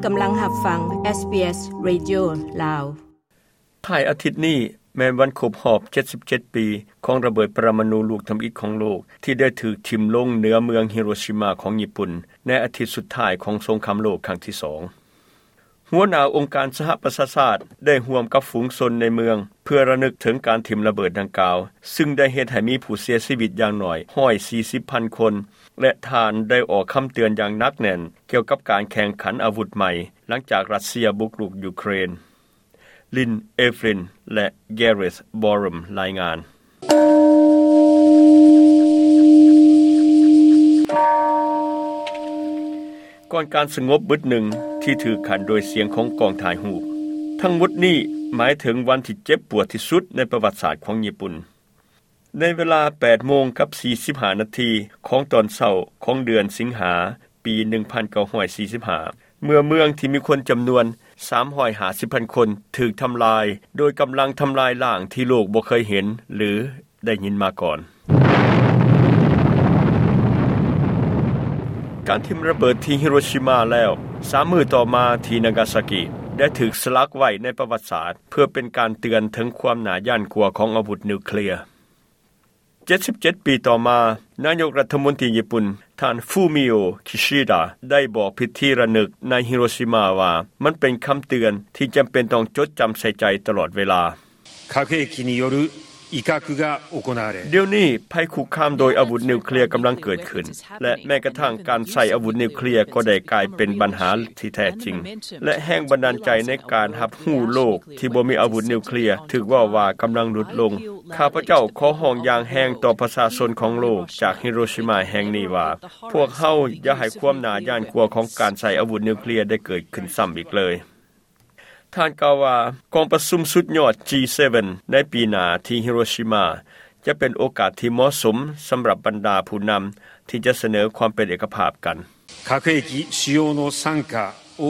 ກຳລັງຮັບຟັງ ເອສບີເອສ ເຣດິໂອ ລາວ. ທ້າຍອາທິດນີ້ແມ່ນວັນຄົບຮອບເຈັດສິບເຈັດປີຂອງລະເບີດປະລະມະນູລູກທຳອິດຂອງໂລກ ທີ່ໄດ້ຖືກຖິ້ມລົງເໜືອເມືອງຮິໂຣຊິມາຂອງຍີ່ປຸ່ນ ໃນອາທິດສຸດທ້າຍຂອງສົງຄາມໂລກຄັ້ງທີສອງ. ຫົວໜ້າອົງການສະຫະປະຊາຊາດໄດ້ຮ່ວມກັບຝູງຊົນໃນເມືອງ ເພື່ອລະນຶກເຖິງການຖິ້ມລະເບີດດັ່ງກ່າວ, ຊຶ່ງໄດ້ເຮັດໃຫ້ມີຜູ້ເສຍຊີວິດຢ່າງໜ້ອຍຮ້ອຍສີ່ສິບພັນຄົນ ແລະ ທ່ານໄດ້ອອກຄຳເຕືອນຢ່າງໜັກແໜ້ນກ່ຽວກັບການແຂ່ງຂັນອາວຸດໃໝ່ ຫຼັງຈາກຣັດເຊຍບຸກລຸກຢູເຄຣນ. ລິນ ເອຟຣິນ ແລະ ແກເຣດ ບອຣມ ລາຍງານ. ກ່ອນການສະຫງົບບຶດໜຶ່ງທີ່ຖືກຂັ້ນໂດຍສຽງຂອງກ້ອງຖ່າຍຮູບ. ທັງໝົດນີ້ໝາຍເຖິງວັນທີ່ເຈັບປວດທີ່ສຸດໃນປະຫວັດສາດຂອງຍີ່ປຸ່ນ. ໃນເວລາແປດໂມງກັບສີ່ສິບຫ້ານາທີຂອງຕອນເຊົ້າຂອງເດືອນສິງຫາ ປີໜຶ່ງພັນເກົ້າຮ້ອຍສີ່ສິບຫ້າ ເມື່ອເມືອງທີ່ມີຄົນຈຳນວນສາມຮ້ອຍຫ້າສິບພັນຄົນຖືກທຳລາຍໂດຍກຳລັງທຳລາຍລ້າງທີ່ໂລກບໍ່ເຄີຍເຫັນ ຫຼື ໄດ້ຍິນມາກ່ອນ. ການຖິ້ມລະເບີດທີ່ຮິໂຣຊິມາແລ້ວ ສາມມື້ຕໍ່ມາທີ່ນາກາຊາກິ ໄດ້ຖືກສະຫຼັກໄວ້ໃນປະຫວັດສາດ ເພື່ອເປັນການເຕືອນເຖິງຄວາມໜ້າຢ້ານກົວຂອງອາວຸດນິວເຄລຍ. ເຈັດສິບເຈັດປີຕໍ່ມາ, ນາຍົກລັດຖະມົນຕີຍີ່ປຸ່ນ ທ່ານ ຟູມິໂອ ຄິຊິດາ ໄດ້ບອກພິທີລະນຶກໃນຮິໂຣຊິມາວ່າ ມັນເປັນຄຳເຕືອນທີ່ຈຳເປັນຕ້ອງຈົດຈຳໃສ່ໃຈຕະຫຼອດເວລາ. 核兵器による威嚇が行われ、 ດຽວນີ້ໄພຄຸກຄາມໂດຍອາວຸດນິວເຄລຍກຳລັງເກີດຂຶ້ນ ແລະ ແມ້ກະທັ່ງການໃຊ້ອາວຸດນິວເຄລຍກໍໄດ້ກາຍເປັນບັນຫາທີ່ແທ້ຈິງ ແລະ ແຮງບັນດານໃຈໃນການຮັບຮູ້ໂລກທີ່ບໍ່ມີອາວຸດນິວເຄລຍຖືກເວົ້າວ່າກຳລັງຫຼຸດລົງ. ຂ້າພະເຈົ້າຂໍຮ້ອງຢ່າງແຮງຕໍ່ປະຊາຊົນຂອງໂລກຈາກຮິໂຣຊິມາແຫ່ງນີ້ວ່າ ພວກເຮົາຢ່າໃຫ້ຄວາມໜ້າຢ້ານກົວຂອງການໃຊ້ອາວຸດນິວເຄລຍໄດ້ເກີດຂຶ້ນຊ້ຳອີກເລີຍ. ທ່ານກ່າວວ່າ ກອງປະຊຸມສຸດຍອດ ຈີເຊເວັນ ໃນປີໜ້າທີ່ຮິໂຣຊິມາ ຈະເປັນໂອກາດທີ່ເໝາະສົມສຳລັບບັນດາຜູ້ນຳທີ່ຈະສະເໜີຄວາມເປັນເອກະພາບກັນ. 核兵器使用の惨禍を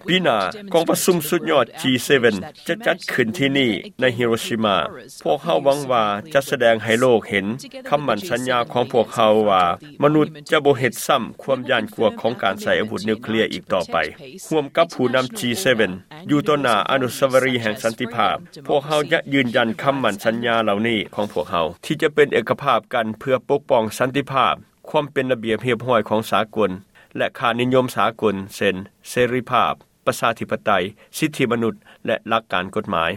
ປີໜ້າ ກອງປະຊຸມສຸດຍອດ ຈີເຊເວັນ ຈະຈັດຂຶ້ນທີ່ນີ້ໃນຮິໂຣຊິມາ. ພວກເຮົາຫວັງວ່າຈະສະແດງໃຫ້ໂລກເຫັນຄຳໝັ້ນສັນຍາຂອງພວກເຮົາວ່າ ມະນຸດຈະບໍ່ເຮັດຊ້ຳຄວາມຢ້ານກົວຂອງການໃຊ້ອາວຸດນິວເຄລຍອີກຕໍ່ໄປ. ຮ່ວມກັບຜູ້ນຳ ຈີເຊເວັນ ຢູ່ຕໍ່ໜ້າອະນຸສາວະລີແຫ່ງສັນຕິພາບ, ພວກເຮົາຈະຢືນຢັນຄຳໝັ້ນສັນຍາເຫຼົ່ານີ້ຂອງພວກເຮົາ ທີ່ຈະເປັນເອກະພາບກັນເພື່ອປົກປ້ອງສັນຕິພາບ, ຄວາມເປັນລະບຽບຮຽບຮ້ອຍຂອງສາກົນ ແລະ ຄ່ານິຍົມສາກົນ ເຊັ່ນ ເສລີພາບ, ປະຊາທິປະໄຕ, ສິດທິມະນຸດ ແລະ ຫຼັກການກົດໝາຍ.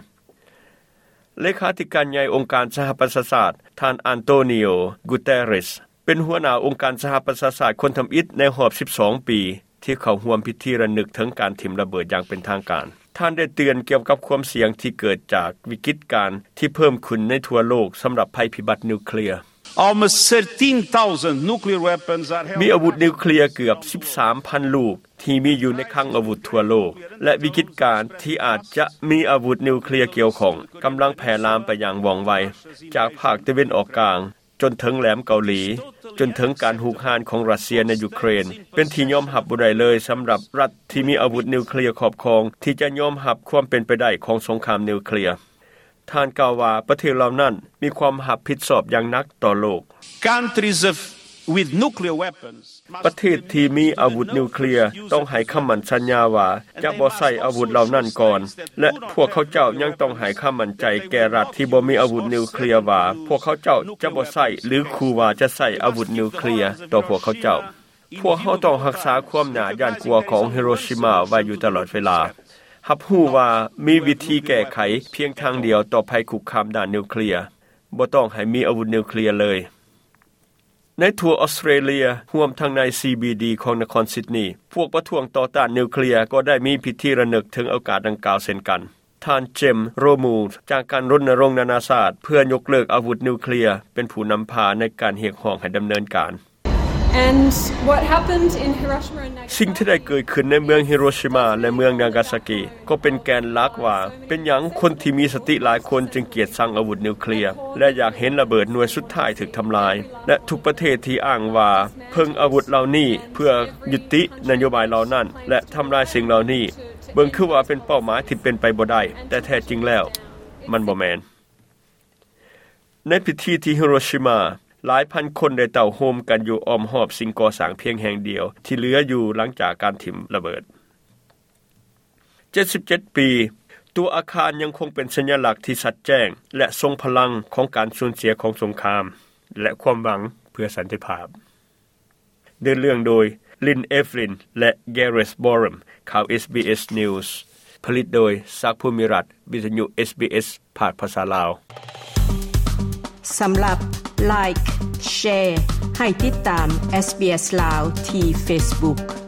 ເລຂາທິການໃຫຍ່ອົງການສະຫະປະຊາຊາດ ທ່ານ ອັນໂຕນີໂອ ກູເຕເຣສ ເປັນຫົວໜ້າອົງການສະຫະປະຊາຊາດຄົນທຳອິດໃນຮອບສິບສອງປີ ທີ່ເຂົ້າຮ່ວມພິທີລະນຶກເຖິງການຖິ້ມລະເບີດຢ່າງເປັນທາງການ. ທ່ານໄດ້ເຕືອນກ່ຽວກັບຄວາມສ່ຽງທີ່ເກີດຈາກວິກິດການທີ່ເພີ່ມຂຶ້ນໃນທົ່ວໂລກສຳລັບໄພພິບັດນິວເຄລຍ. Almost thirteen thousand nuclear weapons are held ມີອາວຸດນິວເຄລຍເກືອບສິບສາມພັນລູກ ທີ່ມີຢູ່ໃນຄັງອາວຸດທົ່ວໂລກ ແລະ ວິກິດການທີ່ອາດຈະມີອາວຸດນິວເຄລຍກ່ຽວຂ້ອງກຳລັງແຜ່ລາມໄປຢ່າງວ່ອງໄວ ຈາກພາກຕາເວັນອອກກາງ ຈົນເຖິງແຫຼມເກົາຫຼີ, ຈົນເຖິງການຮຸກຮານຂອງຣັດເຊຍໃນຢູເຄຣນ ເປັນທີ່ຍອມຮັບບໍ່ໄດ້ເລີຍສຳລັບລັດທີ່ມີອາວຸດນິວເຄລຍຄອບຄອງ ທີ່ຈະຍອມຮັບຄວາມເປັນໄປໄດ້ຂອງສົງຄາມນິວເຄລຍ. ທ່ານກ່າວວ່າ ປະເທດເຫຼົ່ານັ້ນມີຄວາມຮັບຜິດຊອບຢ່າງໜັກຕໍ່ໂລກ. Countries of, with nuclear weapons ປະເທດທີ່ມີອາວຸດນິວເຄລຍຕ້ອງໃຫ້ຄຳໝັ້ນສັນຍາວ່າຈະບໍ່ໃຊ້ອາວຸດເຫຼົ່ານັ້ນກ່ອນ ແລະ ພວກເຂົາເຈົ້າຍັງຕ້ອງໃຫ້ຄຳໝັ້ນໃຈແກ່ລັດທີ່ບໍ່ມີອາວຸດນິວເຄລຍວ່າ ພວກເຂົາເຈົ້າຈະບໍ່ໃຊ້ ຫຼື ຂູ່ວ່າຈະໃຊ້ອາວຸດນິວເຄລຍຕໍ່ພວກເຂົາເຈົ້າ. ພວກເຮົາຕ້ອງຮັກສາຄວາມໜ້າຢ້ານກົວຂອງຮິໂຣຊິມາໄວ້ຢູ່ຕະຫຼອດເວລາ, ຮັບຮູ້ວ່າມີວິທີແກ້ໄຂພຽງທາງດຽວຕໍ່ໄພຄຸກຄາມດ້ານນິວເຄລຍ, ບໍ່ຕ້ອງໃຫ້ມີອາວຸດນິວເຄລຍເລີຍ. ໃນທົ່ວອອສເຕຣເລຍ, ຮວມທັງໃນ ຊີບີດີ ຂອງນະຄອນຊິດນີ, ພວກປະທ້ວງຕໍ່ຕ້ານນິວເຄລຍກໍໄດ້ມີພິທີລະນຶກເຖິງໂອກາດດັ່ງກ່າວເຊັ່ນກັນ. ທ່ານ ເຈມ ໂຣມູລ ຈາກການລົນນະລົງນານາຊາດເພື່ອຍົກເລີກອາວຸດນິວເຄລຍ ເປັນຜູ້ນຳພາໃນການຮຽກຮ້ອງໃຫ້ດຳເນີນການ. And what happened in Hiroshima and Nagasaki ສິ່ງທີ່ໄດ້ເກີດຂຶ້ນໃນເມືອງຮິໂຣຊິມາ ແລະ ເມືອງນາກາຊາກິ ກໍເປັນແກນຫຼັກວ່າ ເປັນຫຍັງຄົນທີ່ມີສະຕິຫຼາຍຄົນຈຶ່ງກຽດຊັງອາວຸດນິວເຄລຍ ແລະ ຢາກເຫັນລະເບີດໜ່ວຍສຸດທ້າຍຖືກທຳລາຍ ແລະ ທຸກປະເທດທີ່ອ້າງວ່າເພິ່ງອາວຸດເຫຼົ່ານີ້ເພື່ອຍຸຕິນະໂຍບາຍເຫຼົ່ານັ້ນ ແລະ ທຳລາຍສິ່ງເຫຼົ່ານີ້ ເບິ່ງຄືວ່າເປັນເປົ້າໝາຍທີ່ເປັນໄປບໍ່ໄດ້, ແຕ່ແທ້ຈິງແລ້ວມັນບໍ່ແມ່ນ. ໃນພິທີທີ່ຮິໂຣຊິມາ, ຫຼາຍພັນຄົນໄດ້ເຕົ້າໂຮມກັນຢູ່ອ້ອມຮອບສິ່ງກໍ່ສ້າງພຽງແຫ່ງດຽວທີ່ເຫຼືອຢູ່ຫຼັງຈາກການຖິ້ມລະເບີດ. ເຈັດສິບເຈັດປີ, ຕົວອາຄານຍັງຄົງເປັນສັນຍະລັກທີ່ຊັດແຈ້ງ ແລະ ຊົງພະລັງຂອງການສູນເສຍຂອງສົງຄາມ ແລະ ຄວາມຫວັງເພື່ອສັນຕິພາບ. ເດີ່ນເລື່ອງໂດຍ Lynn Evelyn ແລະ Gareth Borum. ຂ່າວ SBS News ຜະລິດໂດຍ ສັກ ພູມິລັດ, ວິທະຍຸ SBS ພາກພາສາລາວ. ສຳລັບ Like, Share ໃຫ້ຕິດຕາມ SBS ລາວ ທີ່ Facebook.